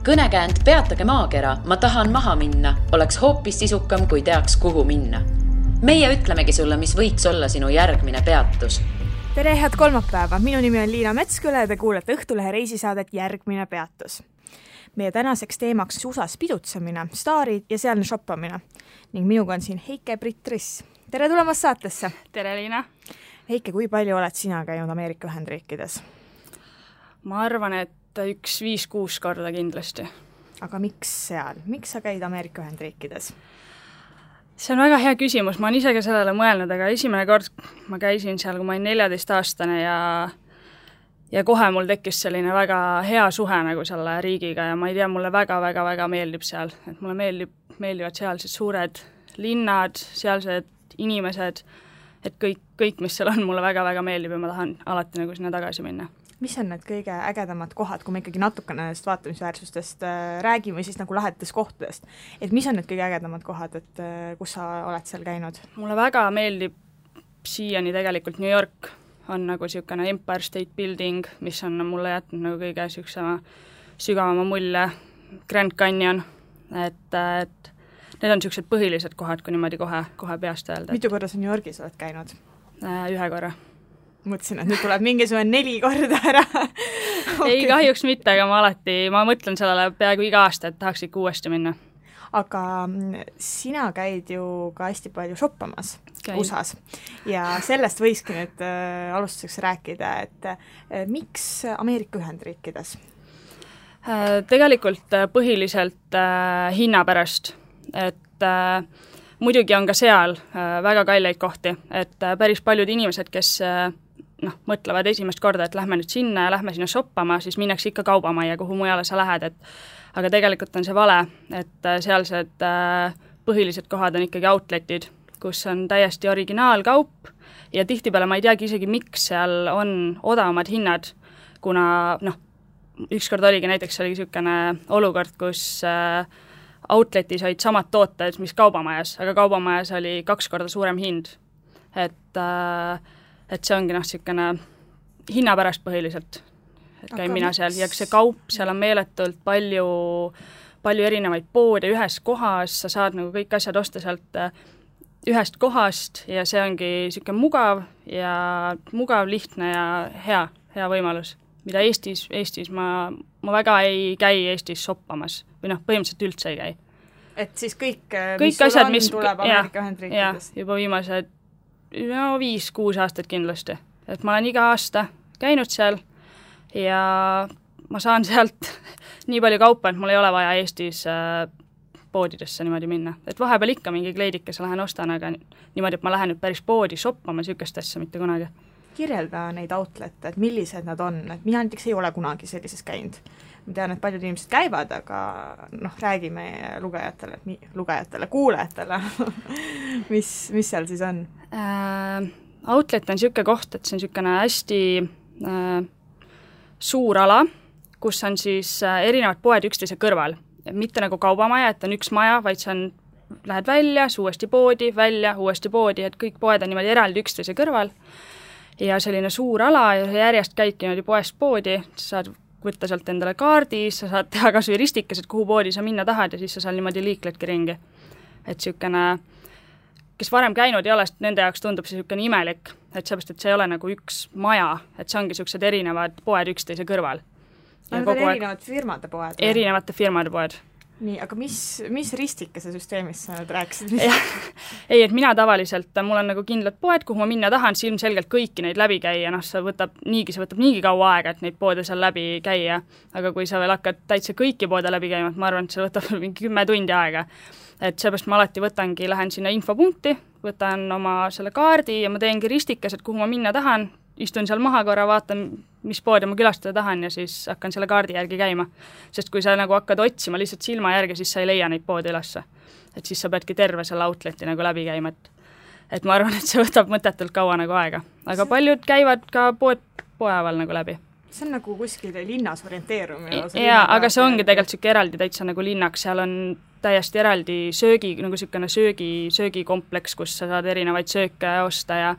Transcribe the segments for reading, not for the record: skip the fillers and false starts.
Kõnekäänd Peatage maakera, ma tahan maha minna, oleks hoopis sisukam, kui teaks, kuhu minna. Meie ütlemegi sulle, mis võiks olla sinu järgmine peatus. Tere, head kolmapäeva! Minu nimi on Liina Metsküla ja te kuulete Õhtulehe reisisaadet Järgmine peatus. Meie tänaseks teemaks USAs pidutsemine, staarid ja sealne shoppamine. Ning minuga on siin Heike-Britt Riss. Tere tulemast saatesse! Tere, Liina! Heike, kui palju oled sina käinud Ameerika Ühendriikides? Ma arvan, et 5-6 korda kindlasti. Aga miks seal? Miks sa käid Ameerika Ühendriikides? See on väga hea küsimus, ma olen ise ka sellele mõelnud, aga esimene kord ma käisin seal, kui ma olin 14-aastane ja kohe mul tekkis selline väga hea suhe nagu selle riigiga ja ma ei tea, mulle väga meeldib seal. Et mulle meeldivad sealsed suured linnad, sealsed inimesed, et kõik, mis seal on, mulle väga meeldib ja ma tahan alati nagu sinna tagasi minna. Mis on need kõige ägedamad kohad, kui me ikkagi natukene nendest vaatamisväärsustest räägime siis nagu lahetest kohtadest? Et mis on need kõige ägedamad kohad, et kus sa oled seal käinud? Mulle väga meeldib siiani tegelikult New York on nagu niisugune Empire State Building, mis on mulle jätnud nagu kõige sügavama mulje, Grand Canyon, et need on niisugused põhilised kohad, kui niimoodi kohe peast öelda. Mitu korda sa New Yorgis oled käinud? 1 korra. Mõtlesin, et nüüd tuleb mingisugune 4 korda ära. Okay. Ei, kahjuks mitte, aga ma mõtlen sellele peaaegu iga aasta, et tahaks ikka uuesti minna. Aga sina käid ju ka hästi palju shoppamas USAs ja sellest võikski nüüd alustuseks rääkida, et miks Ameerika Ühendriikides? Tegelikult põhiliselt hinna pärast, et muidugi on ka seal väga kalleid kohti, et päris paljud inimesed, kes mõtlevad esimest korda, et lähme nüüd sinna ja lähme sinna shoppama, siis minnakse ikka kaubamajja, kuhu mujale sa lähed, aga tegelikult on see vale, et sealsed põhilised kohad on ikkagi outletid, kus on täiesti originaalkaup ja tihtipeale ma ei teagi isegi, miks seal on odavamad hinnad, kuna ükskord oligi niisugune olukord, kus outletis olid samad tooted, mis kaubamajas, aga kaubamajas oli 2 korda suurem hind. Et see ongi niisugune hinna pärast põhiliselt, et käin mina seal ja see kaup, seal on meeletult palju erinevaid poode ühes kohas, sa saad nagu kõik asjad osta sealt ühest kohast ja see ongi niisugune mugav, lihtne ja hea võimalus, mida Eestis ma väga ei käi Eestis shoppamas või põhimõtteliselt üldse ei käi. Et siis kõik mis asjad, mis tuleb Ameerika Ühendriikides? Juba viimased 5-6 aastat kindlasti. Et ma olen iga aasta käinud seal ja ma saan sealt nii palju kaupa, et mul ei ole vaja Eestis poodidesse niimoodi minna. Et vahepeal ikka mingi kleidikese lähen ostan, aga niimoodi, et ma lähen nüüd päris poodi shoppama niisugust asja mitte kunagi. Kirjelda neid outlette, et millised nad on, et mina näiteks ei ole kunagi sellises käinud. Ma tean, et paljud inimesed käivad, aga räägime kuulajatele, mis seal siis on? Outlet on niisugune koht, et see on niisugune hästi suur ala, kus on siis erinevad poed üksteise kõrval. Mitte nagu kaubamaja, et on üks maja, vaid see on, lähed välja, uuesti poodi, välja, uuesti poodi, et kõik poed on niimoodi eraldi üksteise kõrval. Ja selline suur ala ja järjest käidki niimoodi poest poodi, sa saad võtta sealt endale kaardi, sa saad teha kas või ristikesed, kuhu poodi sa minna tahad ja siis sa seal niimoodi liikledki ringi. Et niisugune, kes varem käinud ei ole, nende jaoks tundub see niisugune imelik, et seepärast, et see ei ole nagu üks maja, et see ongi niisugused erinevad poed üksteise kõrval. Need on erinevad firmade poed? Erinevate firmade poed. Nii, aga mis ristikese süsteemist sa nüüd rääkisid? Ei, et mina tavaliselt, mul on nagu kindlad poed, kuhu ma minna tahan, siis ilmselgelt kõiki neid läbi käia, see võtab niigi kaua aega, et neid poode seal läbi käia, aga kui sa veel hakkad täitsa kõiki poode läbi käima, ma arvan, et see võtab mingi 10 tundi aega. Et seepärast ma alati lähen sinna infopunkti, võtan oma selle kaardi ja ma teengi ristikesed, kuhu ma minna tahan, istun seal maha korra, vaatan, mis poode ma külastada tahan ja siis hakkan selle kaardi järgi käima. Sest kui sa nagu hakkad otsima lihtsalt silma järgi, siis sa ei leia neid poode ülesse. Et siis sa peadki terve selle outleti nagu läbi käima. Et ma arvan, et see võtab mõtetult kaua nagu aega. Aga paljud käivad ka poeval nagu läbi. See on nagu kuskil linnas orienteerumine. Jaa, aga see ongi tegelikult siuke eraldi täitsa nagu linnaks. Seal on täiesti eraldi nagu siukene söögikompleks, kus sa saad erinevaid sööke osta ja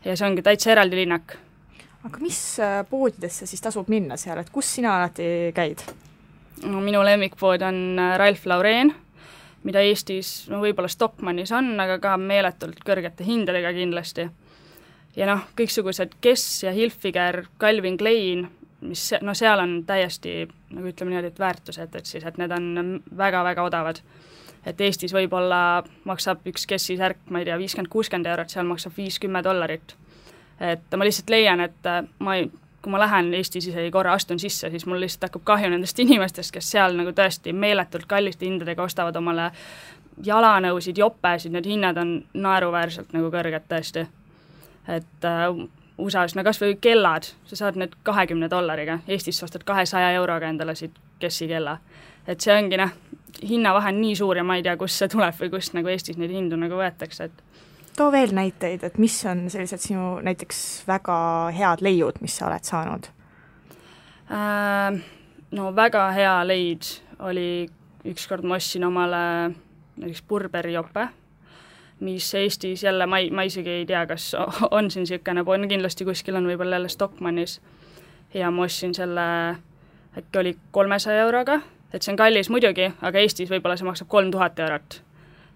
see ongi täitsa eraldi linnak. Aga mis poodidesse siis tasub minna seal, et kus sina alati käid? Minu lemmikpood on Ralph Lauren, mida Eestis võib-olla Stockmannis on, aga ka meeletult kõrgete hindadega kindlasti. Ja kõiksugused Guess ja Hilfiger, Calvin Klein, mis seal on täiesti, nagu ütleme niimoodi, et väärtused, et need on väga-väga odavad. Et Eestis võib-olla maksab üks Guessi särk, ma ei tea, 50-60 €, seal maksab $50. Et ma lihtsalt leian, et kui ma lähen Eestis isegi korra astun sisse, siis mul lihtsalt hakkab kahju nendest inimestest, kes seal nagu tõesti meeletult kalliste hindadega ostavad omale jalanõusid, jopesid, need hinnad on naeruväärselt nagu kõrged tõesti. Et USA-s, kas või kellad, sa saad need $20, Eestis ostad 200 € endale siit Guessi kella. Et see ongi hinnavahe on nii suur ja ma ei tea, kust see tuleb või kust nagu Eestis neid hindu nagu võetakse, et too veel näiteid, et mis on sellised sinu näiteks väga head leiud, mis sa oled saanud? Väga hea leid oli ükskord ma ostsin omale näiteks Burberry jope, mis Eestis jälle, ma isegi ei tea, kas on siin siukene pool, kindlasti kuskil on võib-olla jälle Stockmannis ja ma ostsin selle, äkki oli 300 €, et see on kallis muidugi, aga Eestis võib-olla see maksab 3000 €.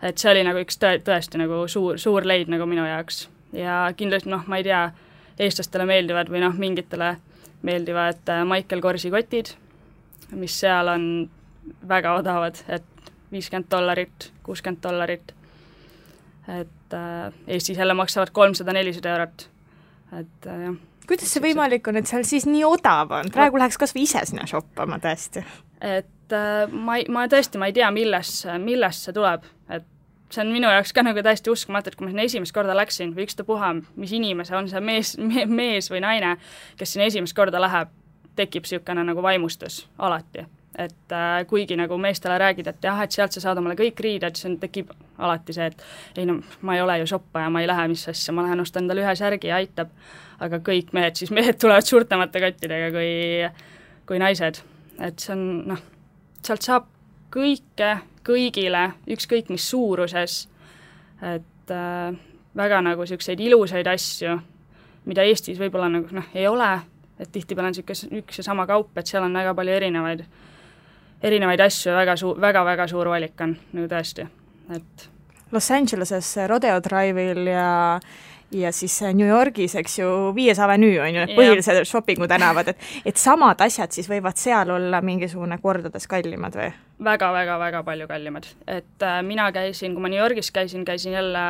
Et see oli nagu üks tõesti nagu suur leid nagu minu jaoks ja kindlasti ma ei tea, eestlastele meeldivad või mingitele meeldivad Michael Korsi kotid, mis seal on väga odavad, et $50, $60, et Eestis jälle maksavad 300-400 €, et jah. Kuidas see võimalik on, et seal siis nii odav on? Praegu läheks kas või ise sinna shoppama tõesti. Et ma tõesti, ma ei tea, millest see tuleb, et see on minu jaoks ka nagu täiesti uskumatu, et kui ma sinna esimest korda läksin või ükstapuha, mis inimese on see mees või naine, kes sinna esimest korda läheb, tekib siukene nagu vaimustus alati. Et kuigi nagu meestele räägid, et jah, et sealt sa saad omale kõik riided, siis tekib alati see, et ei ma ei ole ju shoppaja, ma ei lähe mis asja, ma lähen ostan endale ühe särgi ja aitab, aga kõik mehed tulevad suurtemate kottidega kui naised. Et see on, sealt saab kõigile, ükskõik mis suuruses, et väga nagu selliseid ilusaid asju, mida Eestis võib-olla nagu ei ole, et tihtipeale on üks ja sama kaup, et seal on väga palju erinevaid asju ja väga suur valik on nagu tõesti, et Los Angeleses Rodeo Drive'il ja siis New Yorgis, eks ju, 5. avenue on ju need põhilised shoppingu tänavad, et samad asjad siis võivad seal olla mingisugune kordades kallimad või? Väga palju kallimad, et mina käisin, kui ma New Yorgis käisin jälle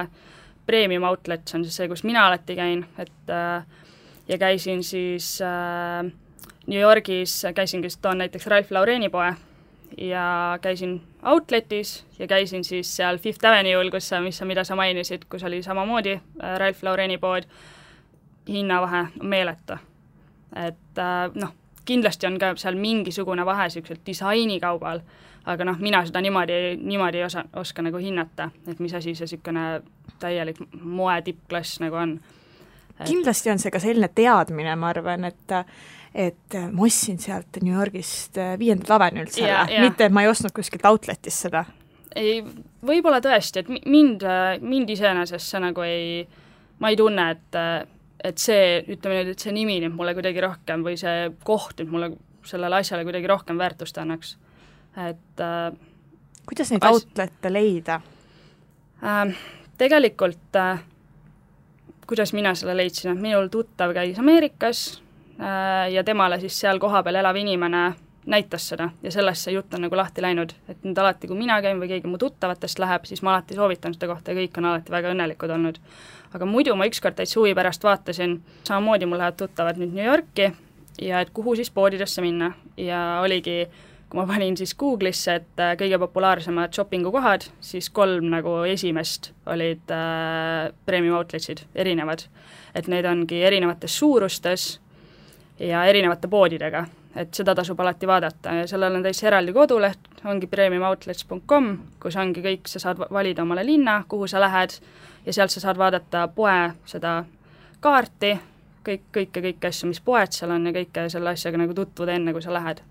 Premium Outlet, see on siis see, kus mina alati käin, et ja käisin siis New Yorgis, toon näiteks Ralph Laureni poe ja käisin Outletis ja käisin siis seal Fifth Avenue'l, mida sa mainisid, kus oli samamoodi Ralph Laureni pood, hinnavahe meeletu. Et kindlasti on ka seal mingisugune vahe sellisel disainikaubal, aga mina seda niimoodi ei oska nagu hinnata, et mis asi see selline täielik moe tippklass nagu on. Kindlasti on see ka selline teadmine, ma arvan, et ma ostsin sealt New Yorgist 5. avenuelt selle, mitte et ma ei ostnud kuskilt outletis seda. Ei, võib-olla tõesti, et mind iseenesest see nagu ma ei tunne, et see, ütleme nüüd, et see nimi nüüd mulle kuidagi rohkem või see koht nüüd mulle sellele asjale kuidagi rohkem väärtust annaks. Et kuidas neid outlette leida? Tegelikult kuidas mina selle leidsin, et minul tuttav käis Ameerikas ja temale siis seal kohapeal elav inimene näitas seda ja sellest see jutt on nagu lahti läinud, et nüüd alati, kui mina käin või keegi mu tuttavatest läheb, siis ma alati soovitan seda kohta ja kõik on alati väga õnnelikud olnud. Aga muidu ma ükskord täitsa huvi pärast vaatasin, samamoodi mul lähevad tuttavad nüüd New Yorki ja et kuhu siis poodidesse minna ja oligi, kui ma panin siis Google'isse, et kõige populaarsemad shoppingukohad, siis 3 nagu esimest olid Premium Outletsid, erinevad. Et need ongi erinevates suurustes ja erinevate poodidega, et seda tasub alati vaadata ja sellel on täitsa eraldi koduleht, ongi premiumoutlets.com, kus ongi kõik, sa saad valida omale linna, kuhu sa lähed ja sealt sa saad vaadata poe seda kaarti, kõike asju, mis poed seal on ja kõike selle asjaga nagu tutvuda enne, kui sa lähed.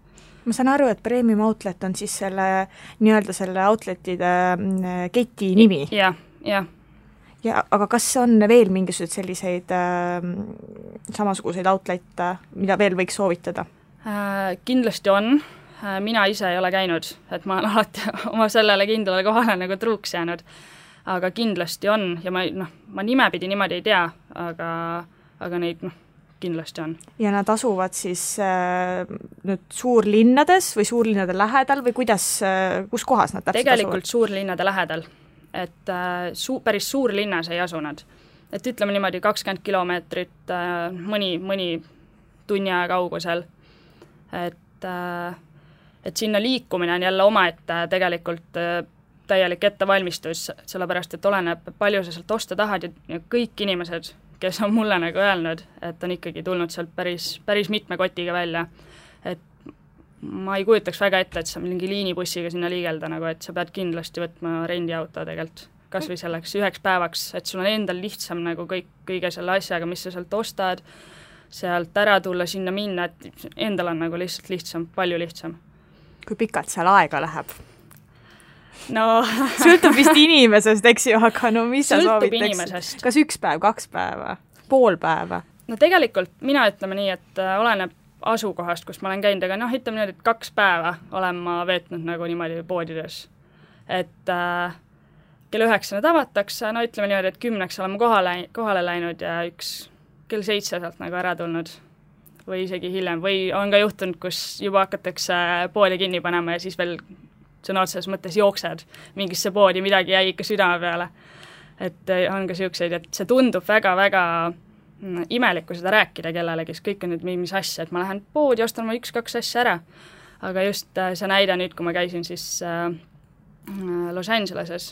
Ma saan aru, et Premium Outlet on siis selle nii-öelda selle outletide keti nimi. Ja, aga kas on veel mingisuguseid selliseid samasuguseid outlette, mida veel võiks soovitada? Kindlasti on, mina ise ei ole käinud, et ma olen alati oma sellele kindlale kohale nagu truuks jäänud. Aga kindlasti on ja ma nimepidi niimoodi ei tea, aga neid kindlasti on. Ja nad asuvad siis nüüd suurlinnades või suurlinnade lähedal või kus kohas nad täpselt tegelikult asuvad? suurlinnade lähedal, et päris suurlinnas ei asu nad. Et ütleme niimoodi 20 kilomeetrit mõni tunni aja kaugusel. Et sinna liikumine on jälle omaette tegelikult täielik ettevalmistus, sellepärast, et oleneb palju sa sealt osta tahad ja kõik inimesed, kes on mulle nagu öelnud, et on ikkagi tulnud sealt päris mitme kotiga välja. Et ma ei kujutaks väga ette, et sa mingi liinibussiga sinna liigelda, nagu, et sa pead kindlasti võtma rendiauto tegelikult, kas või selleks 1 päevaks, et sul on endal lihtsam nagu kõige selle asjaga, mis sa sealt ostad, sealt ära tulla, sinna minna, et endal on nagu lihtsalt lihtsam, palju lihtsam. Kui pikalt seal aega läheb? No sõltub vist inimesest, eks ju, aga no mis sa sõltub soovitaks? Inimesest. Kas 1 päev, 2 päeva, pool päeva? No tegelikult mina ütleme nii, et oleneb asukohast, kus ma olen käinud, aga ütleme nii, et 2 päeva olen ma veetnud nagu niimoodi poodides. Et kell 9 avatakse, ütleme niimoodi, et 10 oleme kohale läinud ja kell 7 sealt nagu ära tulnud või isegi hiljem. Või on ka juhtunud, kus juba hakatakse poodi kinni panema ja siis veel sõna otseses mõttes jooksed mingisse poodi, midagi jäi ikka südame peale. Et on ka siukseid, et see tundub väga-väga imelik, kui seda rääkida kellelegi, kõik on nüüd mis asja, et ma lähen poodi, ostan ma 1-2 asja ära. Aga just see näide nüüd, kui ma käisin siis Los Angeleses,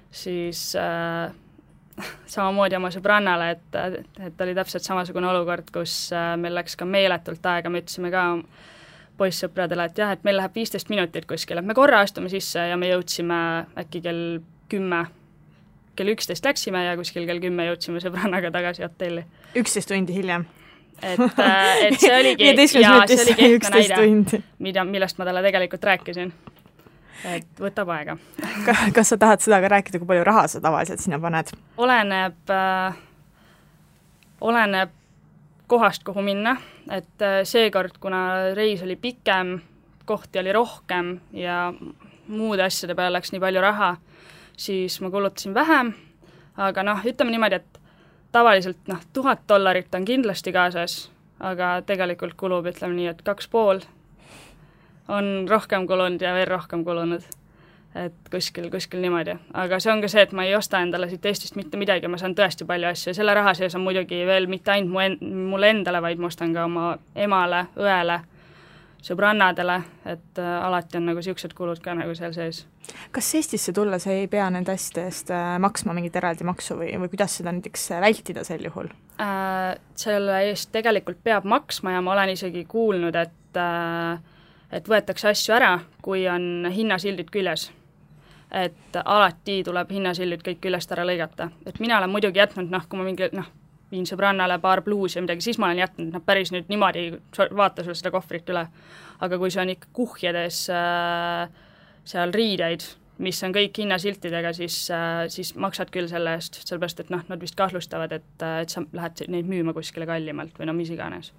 siis samamoodi oma sõbrannale, et oli täpselt samasugune olukord, kus meil läks ka meeletult aega, me ütlesime ka poissõpradele, et jah, et meil läheb 15 minutit kuskil, et me korra astume sisse ja me jõudsime äkki kell 11 läksime ja kuskil kell 10 jõudsime sõbrannaga tagasi hotelli. 11 tundi hiljem. Et see oligi, ja see oligi ehtne näide, millest ma talle tegelikult rääkisin. Et võtab aega. Kas sa tahad seda ka rääkida, kui palju raha sa tavaliselt sinna paned? Oleneb kohast, kuhu minna, et seekord, kuna reis oli pikem, kohti oli rohkem ja muude asjade peale läks nii palju raha, siis ma kulutasin vähem, aga ütleme niimoodi, et tavaliselt $1000 on kindlasti kaasas, aga tegelikult kulub, ütleme nii, et 2,5 on rohkem kulunud ja veel rohkem kulunud. Et kuskil niimoodi. Aga see on ka see, et ma ei osta endale siit Eestist mitte midagi, ma saan tõesti palju asju ja selle raha sees on muidugi veel mitte ainult mulle endale, vaid ma ostan ka oma emale, õele, sõbrannadele, et alati on nagu siuksed kulud ka nagu seal sees. Kas Eestisse tulla sa ei pea nende asjade eest maksma mingit eraldi maksu või kuidas seda näiteks vältida sel juhul? Selle eest tegelikult peab maksma ja ma olen isegi kuulnud, et võetakse asju ära, kui on hinnasildid küljes. Et alati tuleb hinnasildid kõik küljest ära lõigata. Et mina olen muidugi jätnud, kui ma mingi, viin sõbrannale paar bluusi ja midagi, siis ma olen jätnud päris nüüd niimoodi, vaata sul seda kohvrit üle. Aga kui see on ikka kuhjades seal riideid, mis on kõik hinnasiltidega, siis maksad küll selle eest, sellepärast, et nad vist kahlustavad, et sa lähed neid müüma kuskile kallimalt või mis iganes.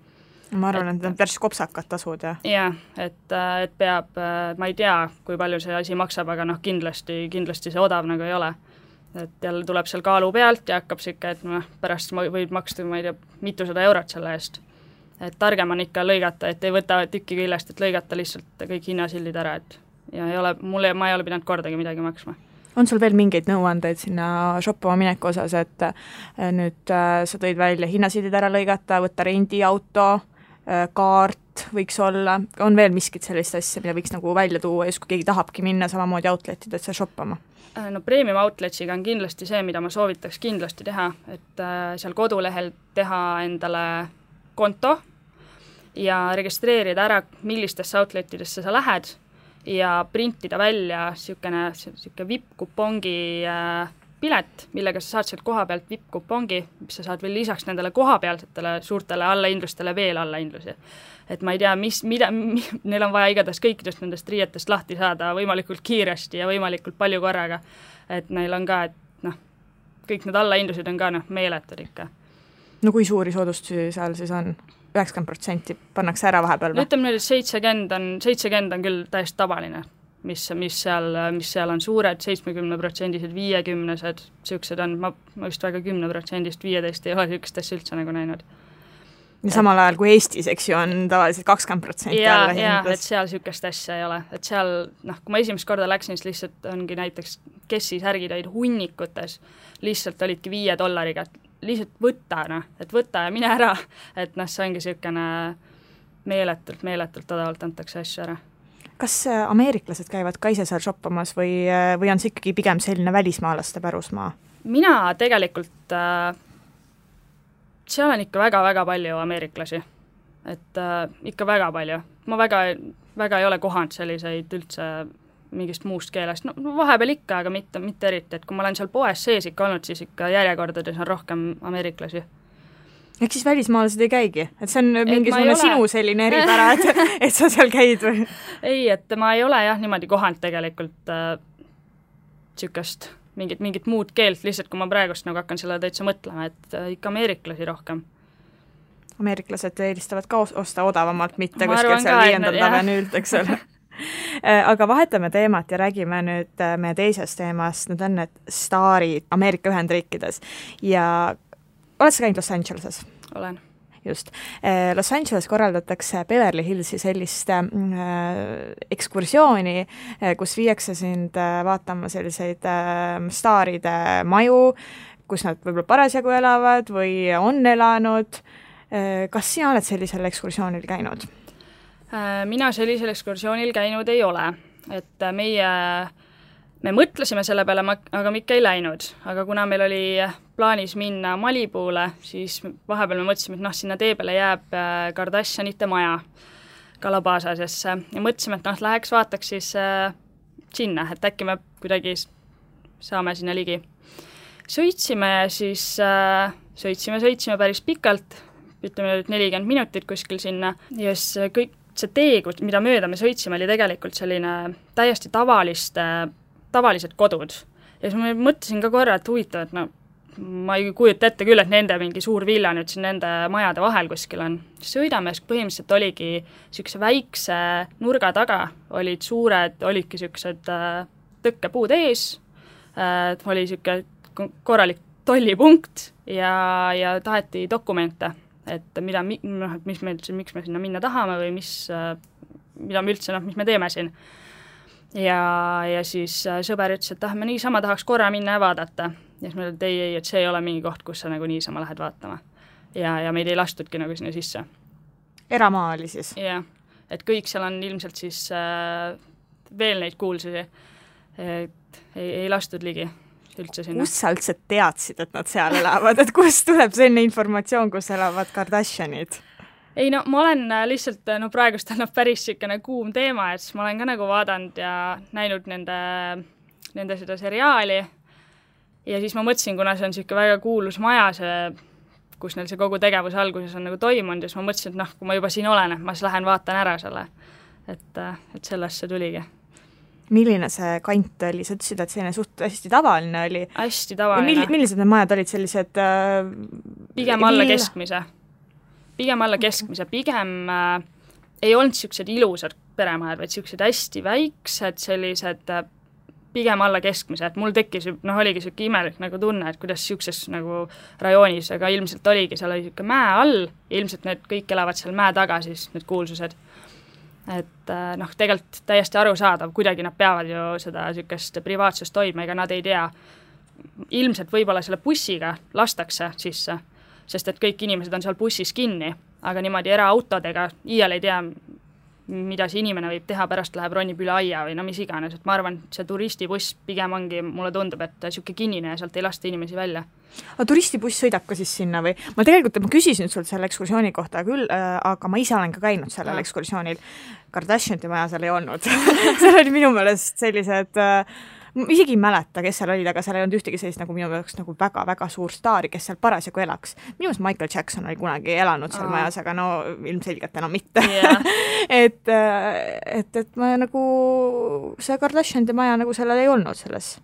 Ma arvan, et need on päris kopsakad tasud, jah? Jah, et peab, ma ei tea, kui palju see asi maksab, aga kindlasti see odav nagu ei ole. Et jälle tuleb seal kaalu pealt ja hakkab siuke, et pärast võid maksta, ma ei tea, mitusada eurot selle eest. Et targem on ikka lõigata, et ei võta tükki küljest, et lõigata lihtsalt kõik hinnasildid ära, et ja ma ei ole pidanud kordagi midagi maksma. On sul veel mingeid nõuandeid sinna shoppama mineku osas, et nüüd sa tõid välja hinnasildid ära lõigata, võtta rendiauto, kaart võiks olla, on veel miskit sellist asja, mida võiks nagu välja tuua, just kui keegi tahabki minna samamoodi outletidesse shoppama? No premium outletsiga on kindlasti see, mida ma soovitaks kindlasti teha, et seal kodulehel teha endale konto ja registreerida ära, millistesse outletidesse sa lähed ja printida välja siuke VIP-kupongi pilet, millega sa saad sealt koha pealt VIP-kupongi, mis sa saad veel lisaks nendele kohapealsetele suurtele allahindlustele veel allahindlusi. Et ma ei tea, neil on vaja igatahes kõikidest nendest riietest lahti saada võimalikult kiiresti ja võimalikult palju korraga. Et neil on ka, et kõik need allahindlused on ka meeletud ikka. No kui suuri soodustusi seal siis on? 90% pannakse ära vahepeal või? Ütleme nüüd, et 70 on küll täiesti tavaline, mis seal on suured, 70%-sed, 50-sed, niisugused on, ma just väga 10%-st 15 ei ole niisugust asja üldse nagu näinud. Ja samal ajal kui Eestis, eks ju, on tavaliselt 20% alla hindas. Jaa, et seal niisugust asja ei ole. Et seal, kui ma esimest korda läksin, siis lihtsalt ongi näiteks Kessi särgid olid hunnikutes, lihtsalt olidki $5, lihtsalt võtta, et võta ja mine ära. Et see ongi niisugune meeletult odavalt antakse asju ära. Kas ameeriklased käivad ka ise seal shoppamas või on see ikkagi pigem selline välismaalaste pärusmaa? Mina tegelikult... seal on ikka väga-väga palju ameeriklasi, et ikka väga palju. Ma väga ei ole kohanud selliseid üldse mingist muust keelest, no vahepeal ikka, aga mitte eriti, et kui ma olen seal poes sees ikka olnud, siis ikka järjekordades on rohkem ameeriklasi. Ehk siis välismaalased ei käigi? Et see on mingisugune sinu selline eripära, et sa seal käid või? Ei, et ma ei ole jah niimoodi kohanud tegelikult niisugust mingit muud keelt, lihtsalt kui ma praegust nagu hakkan selle täitsa mõtlema, et ikka ameeriklasi rohkem. Ameeriklased eelistavad ka osta odavamalt, mitte kuskil seal 5. tavenüült, eks ole. Aga vahetame teemat ja räägime nüüd meie teisest teemast, need on need staarid Ameerika Ühendriikides. Ja oled sa käinud Los Angeleses? Olen. Just. Los Angeles korraldatakse Beverly Hillsi sellist ekskursiooni, kus viiakse sind vaatama selliseid staaride maju, kus nad võib-olla parasjagu elavad või on elanud. Kas sina oled sellisel ekskursioonil käinud? Mina sellisel ekskursioonil käinud ei ole, et me mõtlesime selle peale, aga me ikka ei läinud, aga kuna meil oli plaanis minna Malibule, siis vahepeal me mõtlesime, et sinna tee peale jääb Kardashianite maja Calabasasesse ja mõtlesime, et läheks vaataks siis sinna, et äkki me kuidagi saame sinna ligi. Sõitsime päris pikalt, ütleme 40 minutit kuskil sinna ja siis kõik see tee, mida mööda me sõitsime, oli tegelikult selline täiesti tavalised kodud. Ja siis ma mõtlesin ka korra, et huvitav, et ma ei kujuta ette küll, et nende mingi suur villa nüüd siin nende majade vahel kuskil on. Sõidame, põhimõtteliselt oligi niisuguse väikse nurga taga, olidki niisugused tõkkepuud ees, oli niisugune korralik tollipunkt ja taheti dokumente, et miks me sinna minna tahame või mis me teeme siin. Ja siis sõber ütles, et me niisama tahaks korra minna ja vaadata. Ja siis me ütlen, et see ei ole mingi koht, kus sa nagu niisama lähed vaatama. Ja meid ei lastudki nagu sinna sisse. Eramaa oli siis? Jah, et kõik seal on ilmselt siis veel neid kuulsusi, et ei lastud ligi üldse sinna. Kus sa üldse teadsid, et nad seal elavad? Et kust tuleb selline informatsioon, kus elavad Kardashianid? Ei, ma olen lihtsalt, praegust on päris siukene kuum teema, et ma olen ka nagu vaadanud ja näinud nende seda seriaali ja siis ma mõtlesin, kuna see on siuke väga kuulus maja, kus neil see kogu tegevus alguses on nagu toimunud ja siis ma mõtlesin, et kui ma juba siin olen, et ma siis lähen vaatan ära selle, et sellest see tuligi. Milline see kant oli? Sa ütlesid, et selline suht hästi tavaline oli. Hästi tavaline. Millised need majad olid sellised? Pigem alla keskmise. Pigem ei olnud niisugused ilusad peremajad, vaid niisugused hästi väiksed, sellised pigem alla keskmise, et mul tekkis, oligi niisugune imelik nagu tunne, et kuidas niisuguses nagu rajoonis, aga ilmselt oligi, seal oli niisugune mäe all, ilmselt need kõik elavad seal mäe taga, siis need kuulsused. Et tegelikult täiesti arusaadav, kuidagi nad peavad ju seda niisugust privaatsust toima, ega nad ei tea. Ilmselt võib-olla selle bussiga lastakse sisse, sest et kõik inimesed on seal bussis kinni, aga niimoodi eraautodega iial ei tea, mida see inimene võib teha, pärast läheb ronib üle aia või mis iganes, et ma arvan, et see turistibuss pigem ongi, mulle tundub, et niisugune kinnine ja sealt ei lasta inimesi välja. Aga turistibuss sõidab ka siis sinna või? Ma küsisin sult selle ekskursiooni kohta küll, aga ma ise olen ka käinud sellel ekskursioonil. Kardashianite maja seal ei olnud. seal oli minu meelest sellised isegi ei mäleta, kes seal olid, aga seal ei olnud ühtegi sellist nagu minu jaoks nagu väga-väga suur staari, kes seal parasjagu elaks. Minu meelest Michael Jackson oli kunagi elanud seal majas, aga ilmselgelt enam mitte. Yeah. et ma nagu see Kardashianide maja nagu sellel ei olnud selles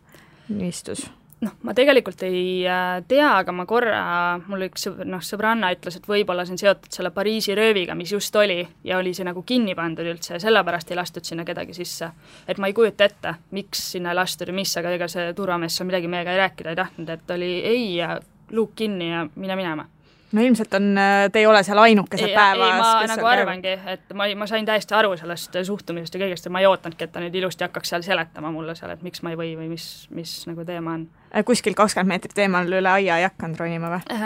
niistus. ma tegelikult ei tea, aga ma korra, mul üks sõbranna ütles, et võib-olla see on seotud selle Pariisi rööviga, mis just oli ja oli see nagu kinni pandud üldse ja sellepärast ei lastud sinna kedagi sisse. Et ma ei kujuta ette, miks sinna ei lastud ja mis, aga ega see turvamees seal midagi meiega ei rääkida ei tahtnud, et oli ei ja luuk kinni ja mine minema. No ilmselt te ei ole seal ainukesed päevas. Ei, ma nagu arvangi, et ma sain täiesti aru sellest suhtumisest ja kõigest ja ma ei ootanudki, et ta nüüd ilusti hakkaks seal seletama mulle seal, et miks ma ei või või mis nagu teema on. Kuskil 20 meetrit eemal üle aia ei hakanud ronima või?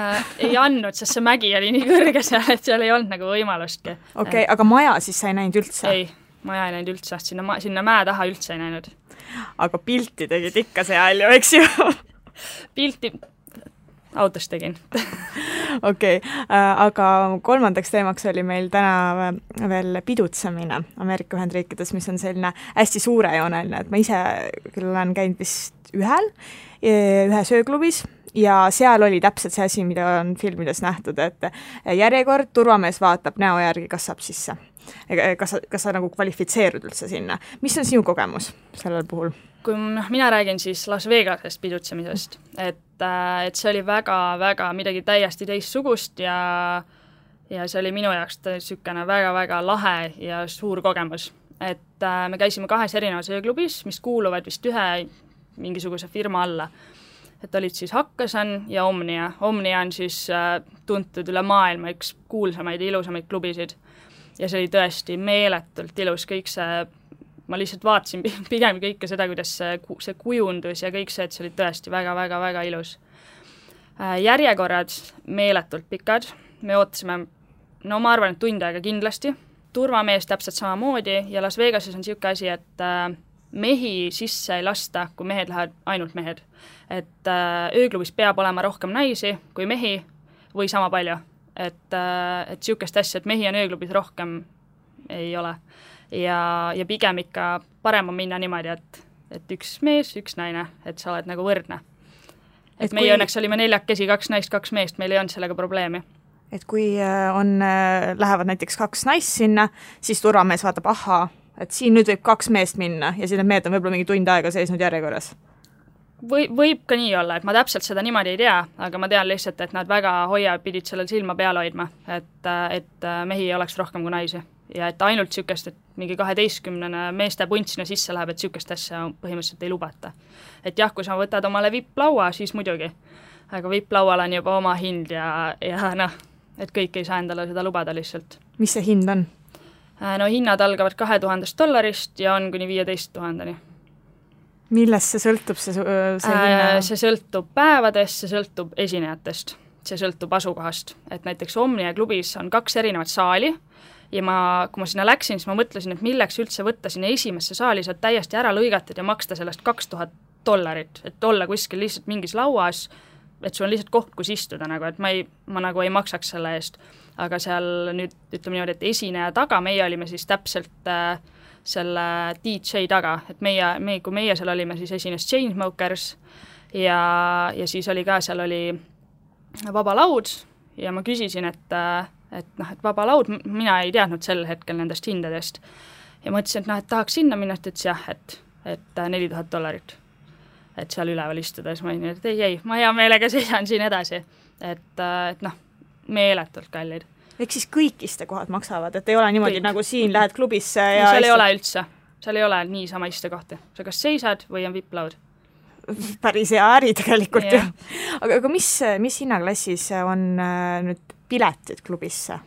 Ei andnud, sest see mägi oli nii kõrge seal, et seal ei olnud nagu võimalustki. Okei, aga maja siis sa ei näinud üldse? Ei, maja ei näinud üldse, sinna mäe taha üldse ei näinud. Aga pilti tegid ikka seal ju, eks ju? Pilti autost tegin. Okei, aga kolmandaks teemaks oli meil täna veel pidutsemine Ameerika Ühendriikides, mis on selline hästi suurejooneline, et ma ise küll olen käinud vist ühe sööklubis ja seal oli täpselt see asi, mida on filmides nähtud, et järjekord, turvamees vaatab näo järgi, kas saab sisse. Kas sa nagu kvalifitseerud üldse sinna. Mis on sinu kogemus sellel puhul? Kui mina räägin siis Las Vegasest pidutsemisest, et see oli väga-väga midagi täiesti teistsugust ja see oli minu jaoks niisugune väga-väga lahe ja suur kogemus. Et me käisime 2 erinevas ööklubis, mis kuuluvad vist ühe mingisuguse firma alla. Et olid siis Hakkasan ja Omnia. Omnia on siis tuntud üle maailma üks kuulsamaid ja ilusamaid klubisid. Ja see oli tõesti meeletult ilus, kõik see ma lihtsalt vaatasin pigem kõike seda, kuidas see kujundus ja kõik see, et see oli tõesti väga-väga-väga ilus. Järjekorrad meeletult pikad, me ootasime, ma arvan, et tund aega kindlasti. Turvamees täpselt samamoodi ja Las Vegases on niisugune asi, et mehi sisse ei lasta, kui mehed lähevad ainult mehed. Et ööklubis peab olema rohkem naisi kui mehi või sama palju. Et niisugust asja, et mehi on ööklubis rohkem ei ole. Ja pigem ikka parem on minna niimoodi, et üks mees, üks naine, et sa oled nagu võrdne. Et meie õnneks olime 4 käsi, 2 naist, 2 meest, meil ei olnud sellega probleemi. Et kui lähevad näiteks 2 naist sinna, siis turvamees vaatab, et siin nüüd võib 2 meest minna ja siis need mehed on võib-olla mingi tund aega seisnud järjekorras. Võib ka nii olla, et ma täpselt seda niimoodi ei tea, aga ma tean lihtsalt, et nad väga pidid sellel silma peal hoidma, et mehi ei oleks rohkem kui naisi. Ja et ainult niisugust, et mingi 12 meeste punt sinna sisse läheb, et niisugust asja põhimõtteliselt ei lubata. Et jah, kui sa võtad omale VIP-laua, siis muidugi. Aga VIP-laual on juba oma hind ja et kõik ei saa endale seda lubada lihtsalt. Mis see hind on? Hinnad algavad $2000 ja on kuni 15 000. Millest see sõltub see hinna? See sõltub päevadest, see sõltub esinejatest, see sõltub asukohast. Et näiteks Omnia klubis on 2 erinevat saali ja kui ma sinna läksin, siis ma mõtlesin, et milleks üldse võtta sinna esimesse saali, sa oled täiesti ära lõigatud ja maksta sellest $2000, et olla kuskil lihtsalt mingis lauas, et sul on lihtsalt koht, kus istuda, et ma nagu ei maksaks selle eest. Aga seal nüüd ütleme niimoodi, et esineja taga, meie olime siis täpselt selle DJ taga, et kui meie seal olime, siis esines Chainsmokers ja siis oli ka, seal oli vaba laud ja ma küsisin, et vaba laud, mina ei teadnud sel hetkel nendest hindadest. Ja mõtlesin, et tahaks sinna minna, et ütles jah, et $4000. Et seal üleval istuda, siis ma olin, et ei, ma hea meelega seisan siin edasi. Et meeletult kallid. Ehk siis kõik istekohad maksavad, et ei ole niimoodi kõik. Nagu siin lähed klubisse ja... Seal ei ole üldse, seal ei ole niisama istekohti. Sa kas seisad või on VIP-laud? Päris hea äri tegelikult ju. Aga mis hinnaklassis on nüüd piletid klubisse?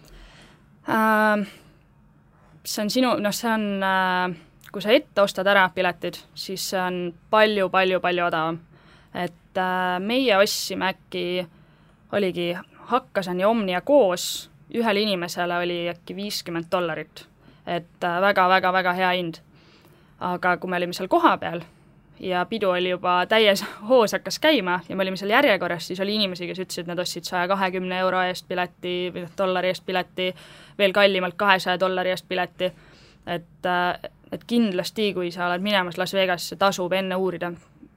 See on kui sa ette ostad ära piletid, siis see on palju odavam. Et meie ostsime äkki, oligi Hakkasan ja Omnia koos, ühel inimesele oli äkki $50. Et väga hea hind. Aga kui me olime seal koha peal ja pidu oli juba täies hoos hakkas käima ja me olime seal järjekorras, siis oli inimesi, kes ütlesid, et nad ostsid €120 eest pileti või $1 eest pileti, veel kallimalt $200 eest pileti. Et kindlasti, kui sa oled minemas Las Vegasse, tasub enne uurida,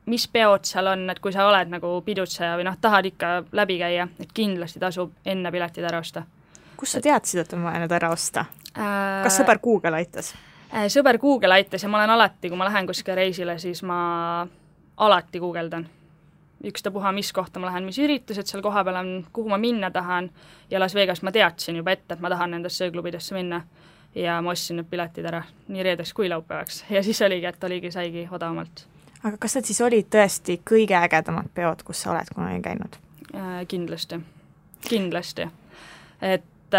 mis peod seal on, et kui sa oled nagu pidutseja või tahad ikka läbi käia, et kindlasti tasub enne piletid ära osta. Kus sa teadsid, et on vaja need ära osta? Kas sõber Google aitas? Sõber Google aitas ja ma olen alati, kui ma lähen kuskile reisile, siis ma alati guugeldan. ükstapuha, mis kohta ma lähen, mis üritused seal koha peal on, kuhu ma minna tahan ja Las Vegas ma teadsin juba ette, et ma tahan nendesse ööklubidesse minna ja ma ostsin need piletid ära nii reedeks kui laupäevaks ja siis saigi odavamalt. Aga kas need siis olid tõesti kõige ägedamad peod, kus sa oled kunagi käinud? Kindlasti. Et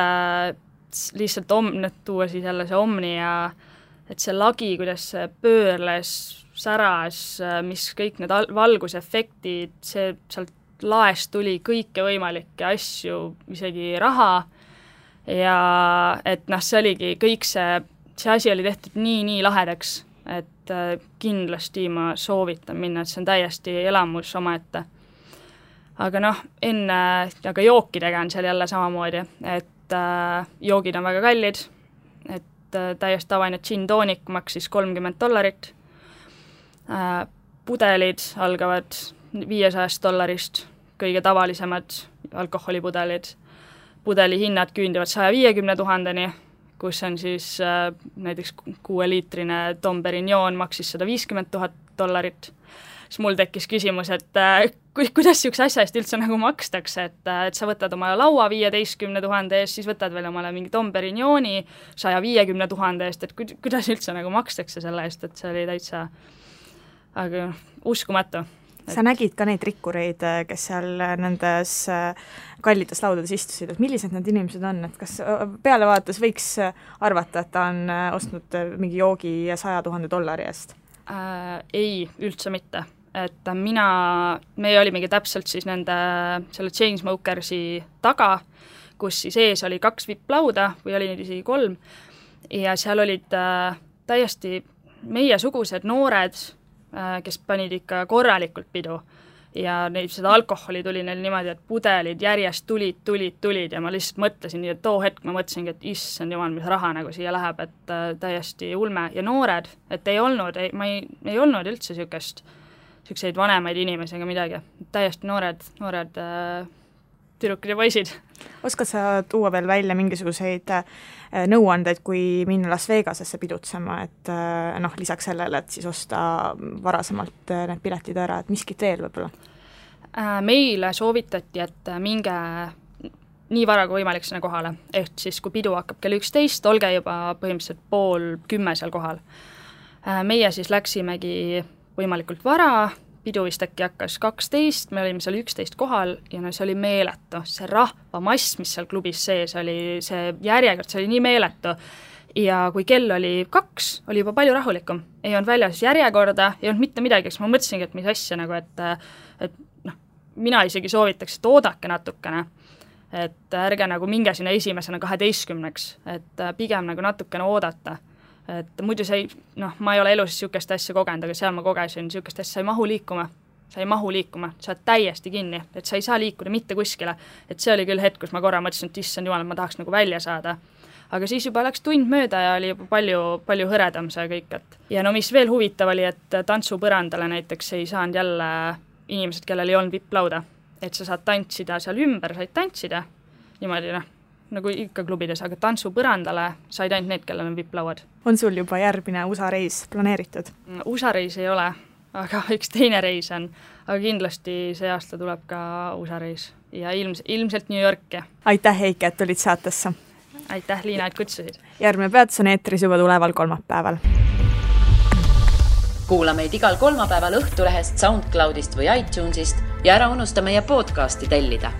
lihtsalt tuua siis jälle see Omni ja et see lagi, kuidas see pöörles, säras, mis kõik need valgusefektid, see sealt laest tuli kõike võimalikke asju, isegi raha ja et see oligi kõik see asi oli tehtud nii lahedaks, et kindlasti ma soovitan minna, et see on täiesti elamus omaette. Aga aga jookidega on seal jälle samamoodi, et joogid on väga kallid, et täiesti tavaline gin tonic maksis $30. Pudelid algavad $500, kõige tavalisemad alkoholipudelid. Pudeli hinnad küündivad 150 000-ni, kus on siis näiteks 6-liitrine Dom Perignon maksis $150 000. Siis mul tekkis küsimus, et kuidas niisuguse asja eest üldse nagu makstakse, et sa võtad omale laua 15 000 eest, siis võtad veel omale mingi Dom Perignoni 150 000 eest, et kuidas üldse nagu makstakse selle eest, et see oli täitsa aga uskumatu. Sa nägid ka neid rikkureid, kes seal nendes kallides laudades istusid, et millised need inimesed on, et kas peale vaadates võiks arvata, et ta on ostnud mingi joogi $100 000 eest? Ei, üldse mitte. Et meie olimegi täpselt siis selle Chainsmokersi taga, kus siis ees oli 2 VIP-lauda või oli neid isegi 3 ja seal olid täiesti meiesugused noored, kes panid ikka korralikult pidu ja seda alkoholi tuli neil niimoodi, et pudelid järjest tulid ja ma lihtsalt mõtlesin nii, et too hetk ma mõtlesingi, et issand jumal, mis raha nagu siia läheb, et täiesti ulme ja noored, et ei olnud üldse siukseid vanemaid inimesi ega midagi, täiesti noored tüdrukid ja poisid. Oskad sa tuua veel välja mingisuguseid nõuandeid, kui minna Las Vegasesse pidutsema, et lisaks sellele, et siis osta varasemalt need piletid ära, et miskit veel võib-olla? Meile soovitati, et minge nii vara kui võimalik sinna kohale, ehk siis kui pidu hakkab kell 11, olge juba põhimõtteliselt 9:30 seal kohal. Meie siis läksimegi võimalikult vara, pidu vist äkki hakkas 12, me olime seal 11 kohal ja see oli meeletu, see rahvamass, mis seal klubis sees oli, see järjekord, see oli nii meeletu ja kui kell oli 2, oli juba palju rahulikum, ei olnud väljas järjekorda, ei olnud mitte midagi, eks ma mõtlesingi, et mis asja nagu, et mina isegi soovitaks, et oodake natukene, et ärge nagu minge sinna esimesena 12, et pigem nagu natukene oodata. Et muidu ma ei ole elus niisugust asja kogenud, aga seal ma kogesin niisugust asja, sa ei mahu liikuma, sa oled täiesti kinni, et sa ei saa liikuda mitte kuskile, et see oli küll hetk, kus ma korra mõtlesin, et issand jumal, ma tahaks nagu välja saada, aga siis juba läks tund mööda ja oli juba palju hõredam see kõik, et ja mis veel huvitav oli, et tantsupõrandale näiteks ei saanud jälle inimesed, kellel ei olnud VIP-lauda, et sa saad tantsida seal ümber, said tantsida niimoodi nagu ikka klubides, aga tantsupõrandale said ainult need, kellel on VIP-lauad. On sul juba järgmine USA reis planeeritud? USA reis ei ole, aga üks teine reis on, aga kindlasti see aasta tuleb ka USA reis ja ilmselt New Yorki. Aitäh, Heike, et tulid saatesse! Aitäh, Liina, et kutsusid! Järgmine peatus on eetris juba tuleval kolmapäeval. Kuula meid igal kolmapäeval Õhtulehest, SoundCloudist või iTunesist ja ära unusta meie podcasti tellida.